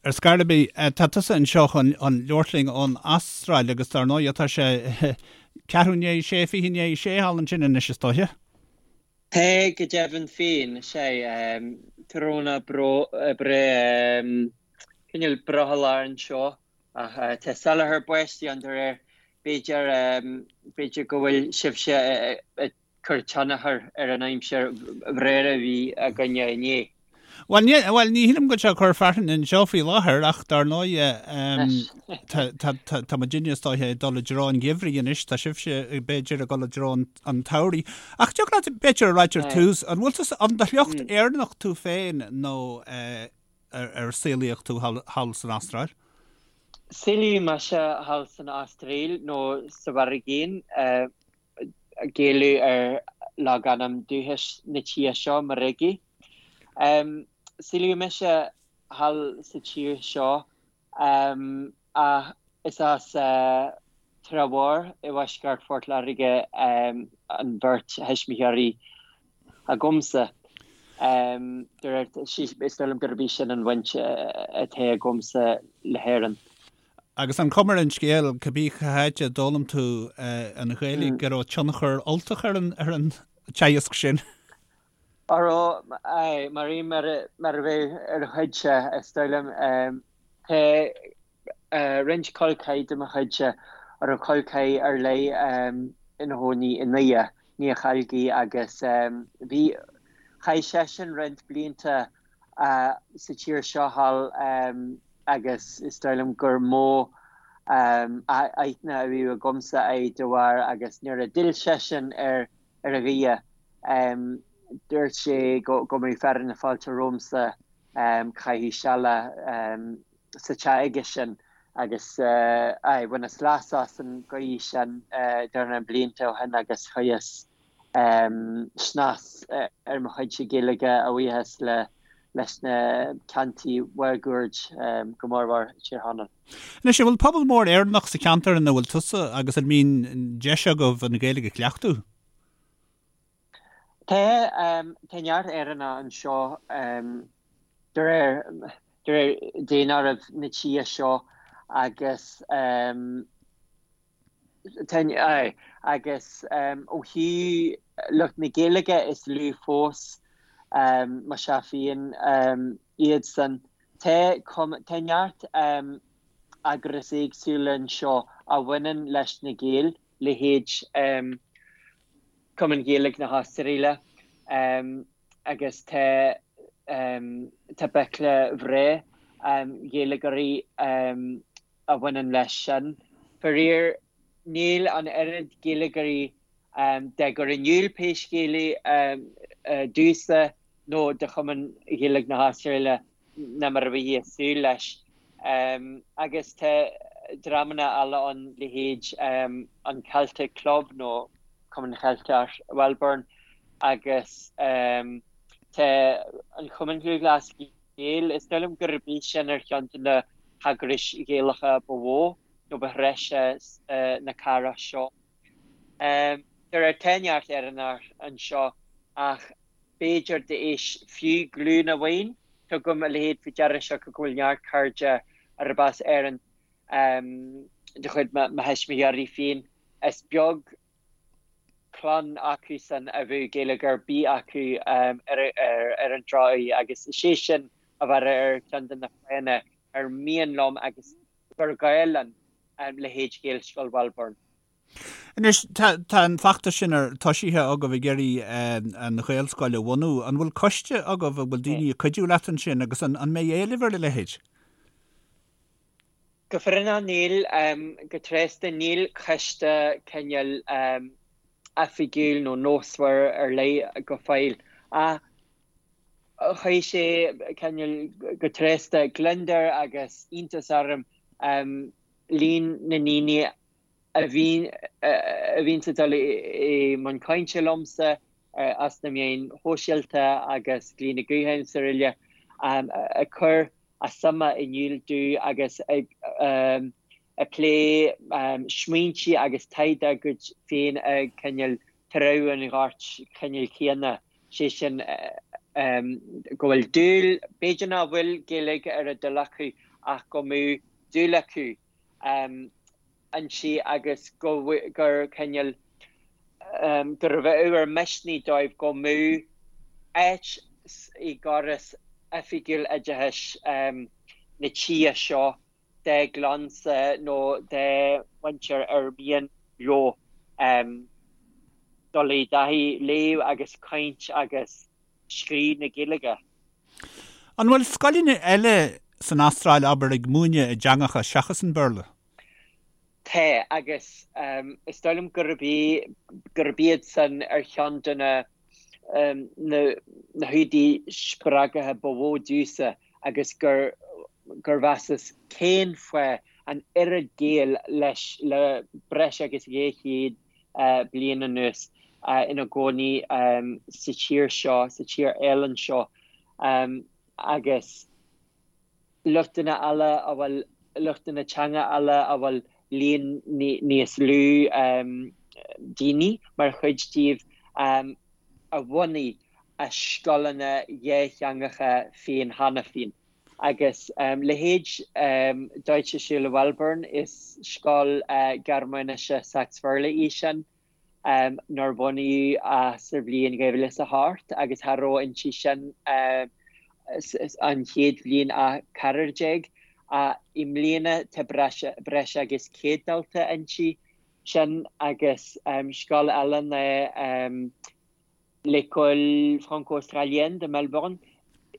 Ar scor ar bith, tá tusa anseo chun labhairt linn ón Astráil agus dar ndóigh tá sé ceathrú i ndiaidh a sé, 5:40 i ndiaidh a sé thall ansin anois is dóiche. Tá go deimhin féin, sea, tráthnóna breá, cineál brothallach anseo ach tá salachar báistí ann de réir, b'fhéidir, b'fhéidir go bhfuil sibhse ag cur tionchar ar an aimsir bhreá a bhí againne inné. Bhuel, ní, bhuel, ní shílim go bhfuil sé ag cur fearthainne anseo faoi láthair ach dar ndóigh tá, tá, tá, tá muidinne is dóiche ag dul i dtreo an gheimhridh anois, tá sibhse b'fhéidir ag dul i dtreo an, an tsamhraidh. Ach dtiocfadh leat b'fhéidir a ráit ar tús, an bhfuil tú, an de shliocht Éireannach tú féin nó eh, ar, ar saolaíodh tú thall, thall san Astráil? Saolaíodh mise thall san Astráil nó sa Mhuirgéin. Eh, Gaelú ar logainm dúchais na tíre seo, Murrurugi. Saolaíodh mise thall sa tír seo ach is as Trá Mhór i bhfoisceart Phort Láirge an bheirt thuismitheoirí agamsa. De réir, is dóigh liom gurb í sin an bhaint atá agamsa le hÉirinn. Agus an chuma ar an scéal, cibé cá háit a d'fhoghlaim tú an Ghaeilge, go raibh tionchar Ultach ar an ar an teagasc sin? Á raibh, aye, mar aon mar mar a bheadh ar a chuidse, is dóigh liom. Tá roinnt col ceathar de mo chuidse a raibh col ceathar ar leith ina chónaí i nDoire, Niall Chailgí, agus bhí, chaith seisean roinnt blianta sa tír seo thall agus is dóigh liom gur mó aithne a bhí agamsa air de bharr agus nuair a d'fhill seisean ar ar Dhoire dúirt sé go mbeadh fearadh na fáilte romhamsa caitheamh seala sa teach aige sin agus aye bhaineas leas as an gcaoi sin dornán blianta ó shin agus chuireas snas ar mo chuidse Gaeilge a bhuíochas leis na ceantair mháguaird, go mórmhór Tír Chonaill. Anois, an bhfuil pobal mór Éireannach sa cheantar ina bhfuil tusa agus an mbíonn deis agaibh an Ghaeilge a chleachtadh? Tá, tá neart Éireannach anseo de réir de réir daonáireamh na tíre seo agus Agus ó thaobh lucht na Gaeilge is lú fós, más ea féin, iadsan. Tá tá neart eagrais éagsúla anseo a bhaineann leis na Gaeil, leithéid Cumann Gaeilge na hAstráile agus tá tá béile bhreá Ghaeilgeoirí a bhaineann leis sin. Faraor, níl an oiread Gaeilgeoirí dá gcur in iúl pé scéal é domhsa nó do Chumann Ghaeilge na hAstráile ná mar a bheifí ag súil leis. Agus tá dreamanna eile ann, leithéid an Celtic Club nó Cumann Cheilteach Mhelbourne agus tá an Chumann Lúthchleas Gael. Is dóigh liom gurb í sin ar cheann de na heagrais Ghaelacha ba mhó nó ba threise na cathrach seo. De réir tá neart Éireannach anseo ach b'fhéidir d'éis fiú glúin amháin, tugaim a leithéid faoi deara siocair go bhfuil neart cairde arb as Éirinn de chuid mo thuismitheoirí féin. Is beag clann acusan a bheadh Gaeilge ar bith acu ar an drochuair agus is é sin a bheadh ar cheann de na fáthanna ar mian liom agus gur gá linn leithéid Ghaelscoil Mhelbourne. Anois, tá an feachtas sin ar toisithe agaibh ag iarraidh an Ghaelscoil a bhunú. An bhfuil coiste agaibh, an bhfuil daoine ag cuidiú leat ansin agus an mbeidh éileamh ar a leithéid? Go fírinneach níl, go tréasta níl coiste cineál oifigiúil nó nósmhar ar leith go fóill. Ach chuir sé cineál go tréasta gliondar agus iontas orm líon na ndaoine a bhíonn a bhíonns ag dul i mbun cainte liomsa as na meáin shóisialta agus glaonna gutháin is araile ag cur a suime in iúl domh agus ag ag plé smaointe agus taighde dá gcuid féin ag cineál treabhadh an ghoirt chineál chéanna, sé sin go bhfuil dúil, b'fhéidir nach bhfuil Gaeilge ar a dtoil acu. ach go mbeadh dúil acu inti agus go gur cineál gurbh ábhar misnigh dóibh go mbeadh áit i gcóras oifigiúil oideachais na tíre seo dá gclannsa nó dá mhuintir ar mian leo dul i dtaithí léamh agus caint agus scríobh na Gaeilge. An bhfuil scoileanna eile san Astráil, abair, ag múineadh i dteangacha seachas an Béarla? Tá, agus is dóigh liom gurb é, gurb iad san ar cheann de na na húdair spreagtha ba mhó domhsa agus gur gur mheasas cén fáth an oiread Gael leis le breis agus 200 bliain anuas ina gcónaí sa tír seo, sa tír álainn seo agus luchtanna eile a bhfuil, luchtanna teanga eile a bhfuil líon níos lú daoine mar chuid díobh a bhunaigh a scoileanna dhátheangacha féin cheana féin. Agus leithéid Deutsche Schule Welburn, is scoil Gearmáinise Sacs-Bhéarla í sin, nár bunaíodh ach sa bhliain 2008 agus cha raibh inti sin an chéad bhliain ach ceathrar déag. I mbliana tá breis agus 100 dalta inti sin agus scoil eile ná L'École Franco-Australienne de Melbourne,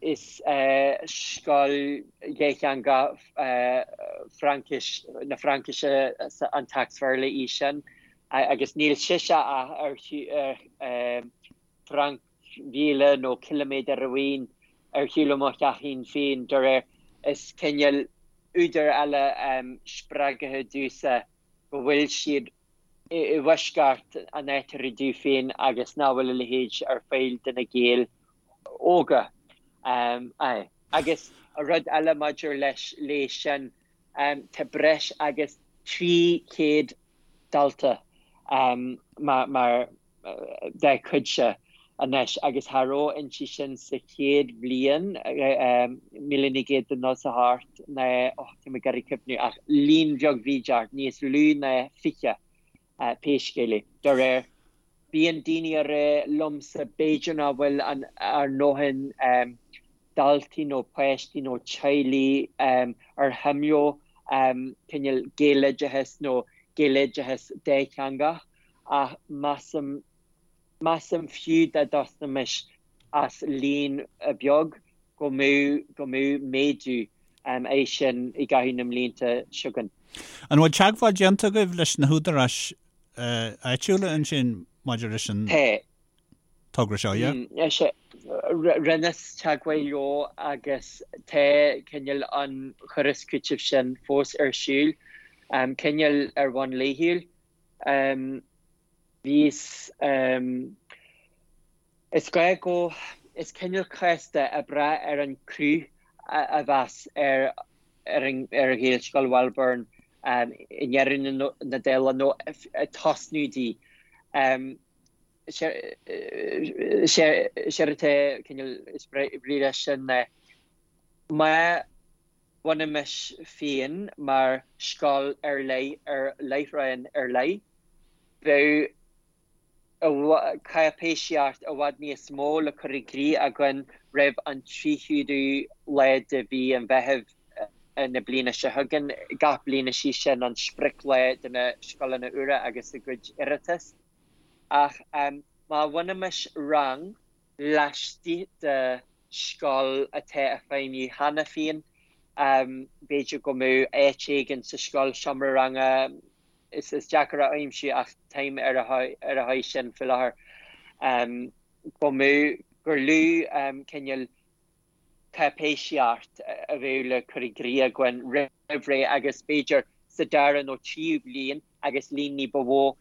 is scoil dhátheangach Fraincis, na Fraincise an tSacs-Bhéarla í sin agus níl sise ach ar thranc mhíle nó ciliméadar amháin ar shiúl ó mo theachín féin, de réir. Is cineál údar eile spreagtha domhsa go bhfuil siad i bhfoisceacht an áit a rugadh féin agus nach bhfuil a leithéid ar fáil do na Gaeil óga. Aye. Agus rud eile maidir leis léi sin, tá breis agus 300 dalta mar dá cuidse anois agus cha raibh inti sin sa chéad bhliain, 1998 ná, oh, tá mé ag iarraidh cuimhniú, ach líon bheag bhídeach, níos lú ná 20 pé scéal é. De réir, bíonn daoine ag rá liomsa b'fhéidir nach bhfuil an ár ndóthain daltaí nó páistí nó teaghlaigh ar shuim leo cineál Gaeloideachas nó Gaeloideachas dátheangach ach measaim, measaim fiú dá dtosnóimis as líon beag go mbeadh, go mbeadh méadú air sin i gcaitheamh na mblianta seo chugainn. An bhfuil teagmháil déanta agaibh leis na húdaráis áitiúla ansin maidir leis an togra seo, yeah? Sea, rinneas teagmháil leo agus tá cineál an chur is cúiteamh sin fós ar siúl, cineál ar bhonn laethúil. Bhíos, is gá go, is cineál casta ag brath ar an cruth a bheas ar ar an ar Ghaelscoil Welburn i ndeireadh na dála nó ag tosnú di. Séard atá cineál is brí leis sin ná má bhunaímis féin mar scoil ar leith ar láithreán ar leith, bheadh cáipéisíocht i bhfad níos mó le cur i gcrích againn roimh an 30ú lá de mhí an Mheithimh na bliana seo chugainn. Gach bliain is í sin an sprioclá do na scoileanna úra agus a gcuid iarratas. Ach má bhunaímis rang laistigh de scoil atá ag feidhmiú cheana féin, b'fhéidir go mbeadh áit éigin sa scoil, seomra ranga, is deacair a aimsiú ach táim ar a aghaidh sin faoi láthair, go mbeadh, gur lú cineál cáipéisíocht a bheadh le cur i gcrích againn roimh ré agus b'fhéidir sa dara nó tríú bliain agus líon ní ba mhó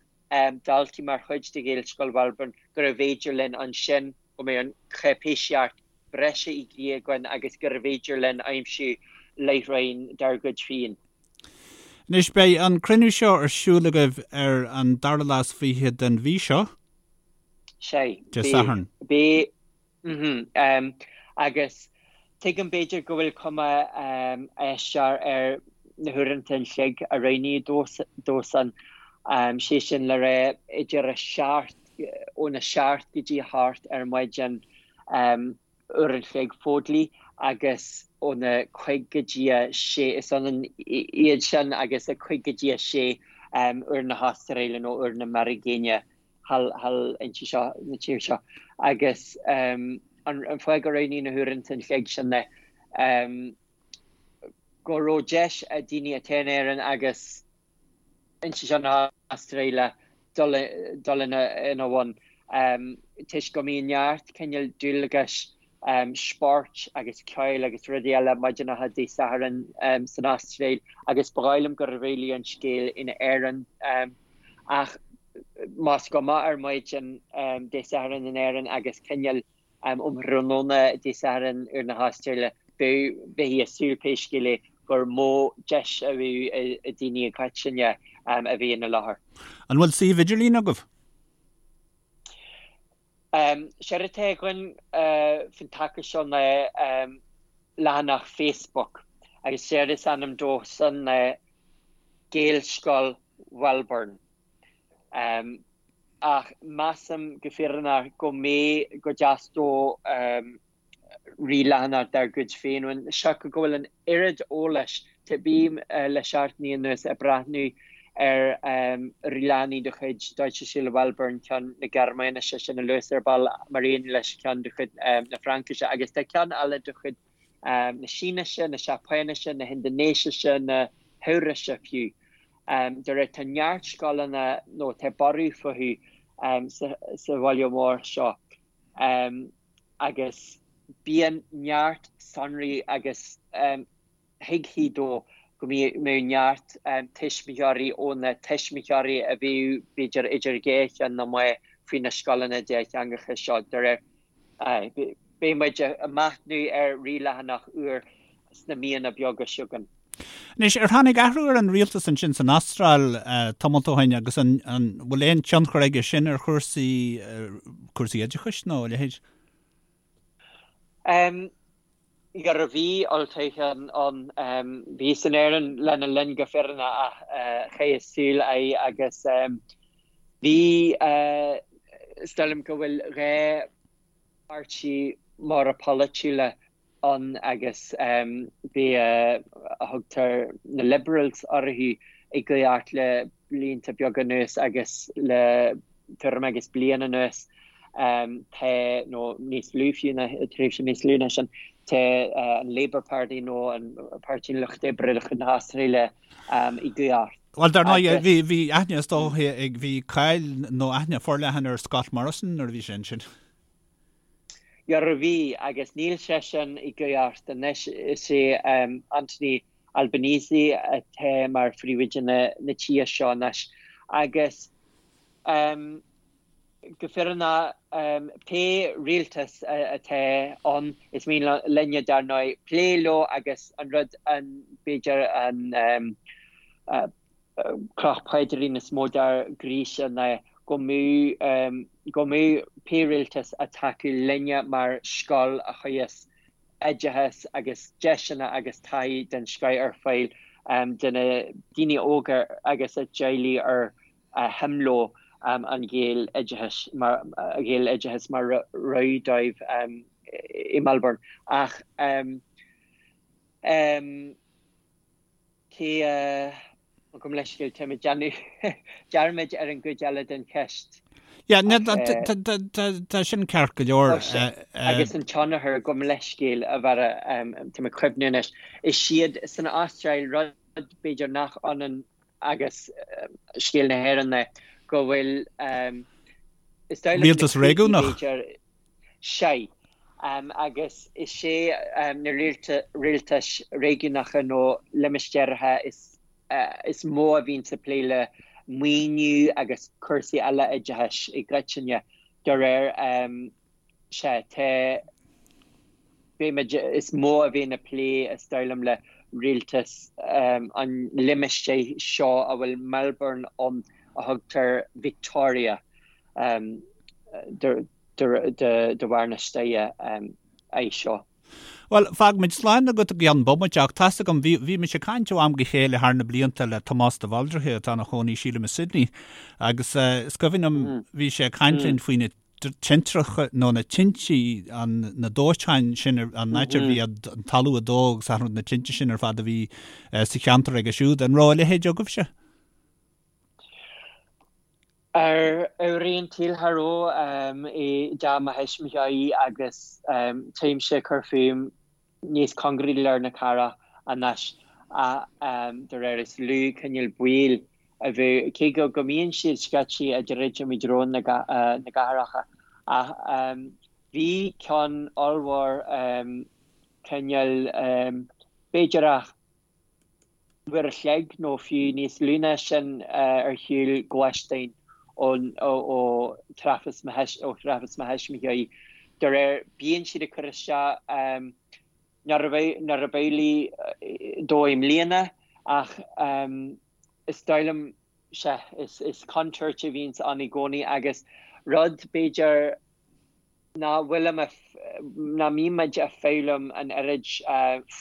daltaí mar chuid de Ghaelscoil Welburn gurbh fhéidir linn ansin go mbeadh an cháipéisíocht breise i gcrích againn agus gurbh fhéidir linn aimsiú láithreáin dár gcuid féin. Anois, beidh an cruinniú seo ar siúl agaibh ar an dara lá is fiche den mhí seo. Sea. Dé Sathairn. Beidh. Mhm. Agus. Tuigim b'fhéidir go bhfuil cuma aisteach ar na huaireanta an chloig a roghnaíodh dó san, sé sin le rá idir a seacht, óna seacht go dtí a hocht ar maidin uair an chloig fódlaí agus óna cuig go dtí a sé, is ionann iad sin agus a cuig go dtí a sé uair na hAstráile nó uair na Meiricéine. thall inti seo, na tír seo. Agus an fáth gur roghnaíodh na huaireanta an chloig sin ná go raibh deis ag daoine atá in Éirinn agus inti seo na hAstráile dul ina bhun toisc go mbíonn neart cineál dualgais spóirt agus ceoil agus rudaí eile maidineacha Dé Sathairn san Astráil agus ba dhóigh liom gurbh amhlaidh an scéal in Éirinn ach más go moch ar maidin Dé Sathairn in Éirinn agus cineál um thráthnóna Dé Sathairn uair na hAstráile bheifí ag súil pé scéal é gur mó deis a bheadh ag daoine i gcoitinne a bheith ina láthair. An bhfuil suíomh idirlín agaibh? Séard atá againn faoin taca seo ná leathanach Facebook agus séard is ainm dó san ná Gaelscoil Mhelbourne. Ach measaim go fírinneach go mbeidh, go dteastódh ríleathanach dár gcuid féin uainn. Siocair go bhfuil an oiread eolais, bím le seachtainí anuas ag breathnú ar ríleathanaigh de chuid Deutsche Schule Melbourne, ceann na Gearmáinise sin a luas ar ball, mar aon leis ceann de chuid na Fraincise, agus tá ceann eile de chuid na Sínise, na Seapáinise, na hIndinéisise, na hEabhraise fiú. De réir tá neart scoileanna nó tá borradh fúthu sa bhaile mór seo. Agus bíonn neart sonraí agus thuigfí dó go mbeadh neart tuismitheoirí ó na tuismitheoirí a bhíodh b'fhéidir idir dhá cheann na meá faoi na scoileanna dátheangacha seo. De réir, beidh muid ag machnamh ar ríleathanach úr sna míonna beaga seo chugainn. Anois, ar tháinig athrú ar an rialtas ansin san Astráil tamalt ó shin agus an bhfuil aon tionchar aige sin ar chúrsaí, cúrsaí oideachais nó a leithéid? Dhera bhí olltoghchán ann. Bhíos in Éirinn lena linn go fírinneach ach chaitheas súil air agus bhí, is dóigh liom go bhfuil 2 pháirtí móra polaitiúla ann agus b'é a thugtar na Liberals orthu i gcumhacht le blianta beaga anuas agus le tuairim agus bliain anuas tá, nó níos lú fiú ná, tréimhse níos lú ná sin, tá an Labour Party nó an Páirtí an Lucht Oibre de chuid na hAstráile i gcumhacht. Bhuel, dar ndóigh, bhí, bhí aithne is dóiche ag, bhí cáil nó aithne forleathan ar Scott Morrison nuair a bhí sé ansin. Dhera bhí, agus níl seisean i gcumhacht anois. Is é Anthony Albanese atá mar phríomhoide na tíre seo anois. Agus go fírinneach, pé rialtas atá ann, is mian linne, dar ndóigh, plé leo agus an rud, an, b'fhéidir, an cloch paidrín is mó dár gcroíse ná go mbeadh go mbeadh pé rialtas ag tacú linne mar scoil a chuirfeas oideachas agus deiseanna agus taithí den scoith ar fáil do na daoine óga agus a dteaghlaigh ar shuim leo an Ghaeloideachas mar Ghaeloideachas mar rogha dóibh i Melbourne. Ach Cé a. Gabh mo leithscéal, tá mé ag déanamh dearmaid ar an gcuid eile den cheist. Yeah, tá sin ceart go leor. Agus an tionchar, gabh mo leithscéal, a Bharra, tá mé ag cuimhniú anois. Is iad san Astráil, rud b'fhéidir nach ionann agus scéal na hÉireann é, go bhfuil, is dóigh liom, Rialtas réigiúnach? Sea. Agus is é na rialtais réigiúnacha nó limistéaracha is mó a bhíonns ag plé le maoiniú agus cúrsaí eile oideachais i gcoitinne. De réir, sea, tá, beimid, is mó a bhíonn ag plé, is dóigh liom, le rialtas an limistéir seo a bhfuil Melbourne ann a thugtar Victoria de bharr na staire é seo. Bhuel, fágfaimid slán agat i gceann bomaite ach tá's agam, bhí, bhí mise ag caint ó am go chéile thar na blianta le Tomás de Bhaldraithe atá ina chónaí sílim i Sydney agus is cuimhin liom bhí sé ag caint linn faoi na tintreacha nó na tintí, an, na dóiteáin sin, an áit a bhí an talamh ag dó agus achan rud, na tinte sin ar fad a bhí sa cheantar aige siúd. An raibh a leithéid agaibhse? Ar éirí an tsaoil cha raibh i dteach mo thuismitheoirí agus táimse ag cur fúm níos cóngaraí lár na cathrach anois ach de réir is lú cineál baol a bheadh, cé go go mbíonn siad scaití ag druidim i dtreo na gcathracha ach bhí ceann ollmhór cineál b'fhéidir ach uair a chloig nó fiú níos lú ná sin ar shiúl gluaisteáin ó thrafas mo thuismitheoirí. De réir, bíonn siad ag cur isteach nuair a b'amhlaidh dó i mbliana ach is dóigh liom, sea, is contúirt a bhíonns ann i gcónaí agus rud b'fhéidir nach bhfuilim a, nach mbímid a foghlaim an oiread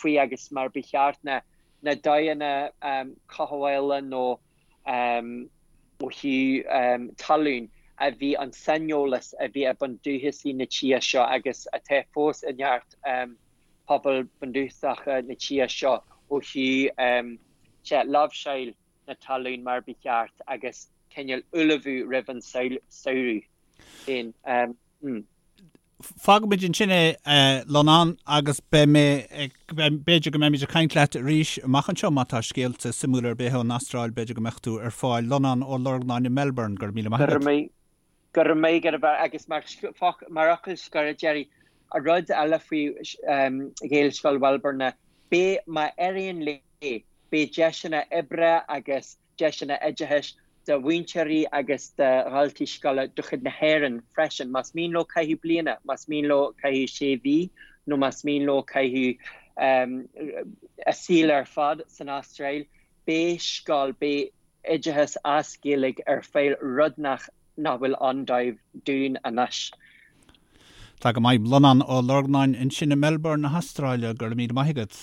faoi agus mar ba cheart na na dóigheanna cothabhála nó ó thaobh talún a bhí an saineolas a bhí ag bundúchasaigh na tíre seo agus atá fós i neart pobal bundúchasacha na tíre seo ó thaobh sea, láimhseáil na talún mar ba cheart agus cineál ullmhú roimh an samhradh féin. Fágfaimid ansin é, a Lonán, agus beidh mé ag, b'fhéidir go mbeimid ag caint leat arís amach anseo má tá scéalta suimiúla ar bith ón Astráil, b'fhéidir go mbeadh tú ar fáil. Lonán Ó Lorgnáin i Melbourne, go raibh míle maith agat. Go raibh maith agat, a agus mar fhocal scoir, a Gerry, rud eile faoi Ghaelscoil Mhelbourne ná, beidh, má éiríonn léi, beidh deiseanna oibre agus deiseanna oideachais do mhúinteoirí agus do dhaltaí scoile de chuid na hÉireann freisin, más mian leo caitheamh bliana, más mian leo caitheamh sé mhí nó más mian leo caitheamh a saol ar fad san Astráil, beidh scoil, beidh oideachas as Gaeilge ar fáil, rud nach nach bhfuil ann dóibh, dúinn anois. Tá go maith. Lonán Ó Lorgnáin ansin i Melbourne na hAstráile, go raibh míle maith agat.